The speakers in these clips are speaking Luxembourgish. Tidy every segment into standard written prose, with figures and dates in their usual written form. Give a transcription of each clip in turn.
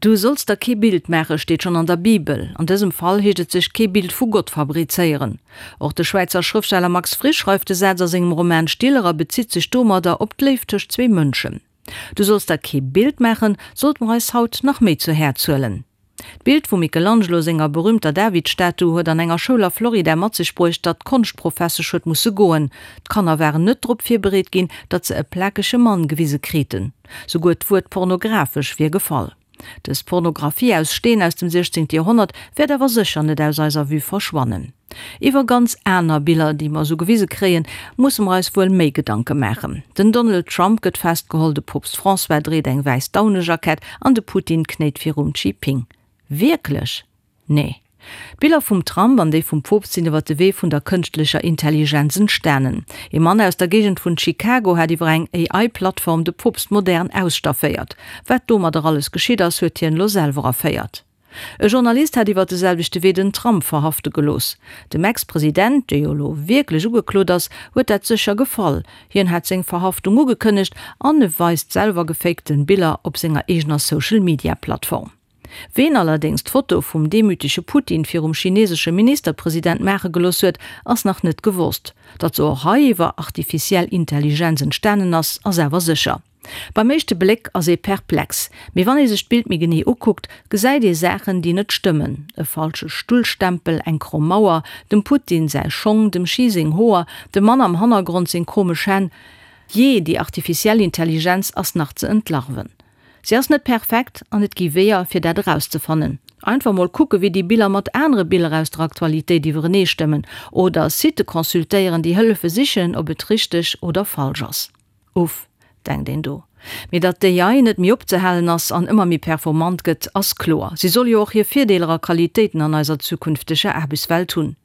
Du solls der kee Bild maachen, steet schonn an der Bibel. An dësem Fall heescht et sech kee Bild vu Gott fabrizéieren. Och de Schwäizer Schrëftsteller Max Frisch schreift de Saz a sengem Roman Stiller a bezitt sech domadder op d'Léift tëscht zwee Mënschen. Du solls der kee Bild maachen, sollte mer eis haut nach méi zu Häerz huelen. D'Bild vum Michelangelo senger berüümter David-Statu huet an enger Schoul a Florida mat sech bruecht, datt d'Konschtprofessesch huet musse goen. D'Kanner waren net drop virbereet ginn, datt se e plakege Mann gewise kriten. Souguer d'Wuert pornografesch wier gefall. Dës Pornographie aus Steen aus dem 16. Joerhonnert wäert awer sécher net aus eiser Vue verschwannen. Iwwer ganz aner Biller, déi mer esou gewise kréien, musse mer eis wuel méi Gedanke maachen. Den Donald Trump gëtt festgeholl, de Poopst François dréit eng wäiss Daunejackett an de Putin knéit virum Xi Ping. Wierklech? Nee. D'Biller vum Trump an déi vum Poopst sinn iwwer de Wee vun der kënschtlecher Intelligenz entstanen. Ee Mann aus der Géigend vun Chicago hat iwwer eng AI-Plattform de Poopst modern ausstafféiert. Wat domadder alles geschitt ass, huet hien elo selwer erféiert. E Journalist hat iwwer de selwechte Wee den Trump verhafte gelooss. Dem Ex-President, dee jo elo wierklech ugeklot ass, huet dat sécher gefall. Hien hat seng Verhaftung ugekënnegt an e weist selwer gefakten Biller op senger eegener Social-Media-Plattform. Ween allerdéngs d'Foto vum demütege Putin virum chinesesche Ministerpresident maache gelooss huet, ass nach net gewosst. Datt se och hei iwwer artificiell Intelligenz entstanen ass, ass awer sécher. Beim éischte Bléck ass ee perplex, mee wann ee sech d'Bild méi genee ukuckt, gesäit ee Saachen, déi net stëmmen, e falsche Stullstempel, eng kromm Mauer, dem Putin säi Schong, dem Xi seng Hoer, dem Mann am Hannergrond seng komesch Hänn. Jee, déi artificiell Intelligenz ass nach ze entlarven. Si ass net perfekt an et gi Weeër, fir dat erauszefannen. Einfach mol kucke wéi déi Biller mat anere Biller aus der Aktualitéit iwwerenee stëmmen oder Sitë consultéieren, déi hëllefe sichen, ob et richteg oder falsch ass. Uff, denkt een do. Mee datt d'AI net méi opzehalen ass an ëmmer méi performant gëtt, ass kloer. Si soll jo och hir Virdeeler a Qualitéiten an eiser zukünfteger Aarbechtswelt hunn.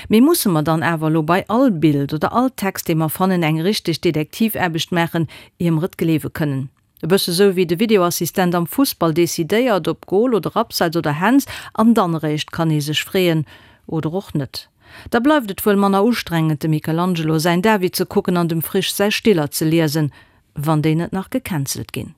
Mee musse mer dann awer elo bei all Bild oder all Text, dee mer fannen, eng richteg Detektivaarbecht maachen, ier mer et gleewe kënnen? E bësse sou wéi de Videoassistent am Fussball decidéiert, ob Gol oder Abseits oder Händs, an dann eréischt kann ee sech freeën, oder och net. Da bleift et wuel manner ustrengend, dem Michelangelo säin David ze kucken an dem Frisch säi Stiller ze liesen, wann déi net nach gecancelt ginn.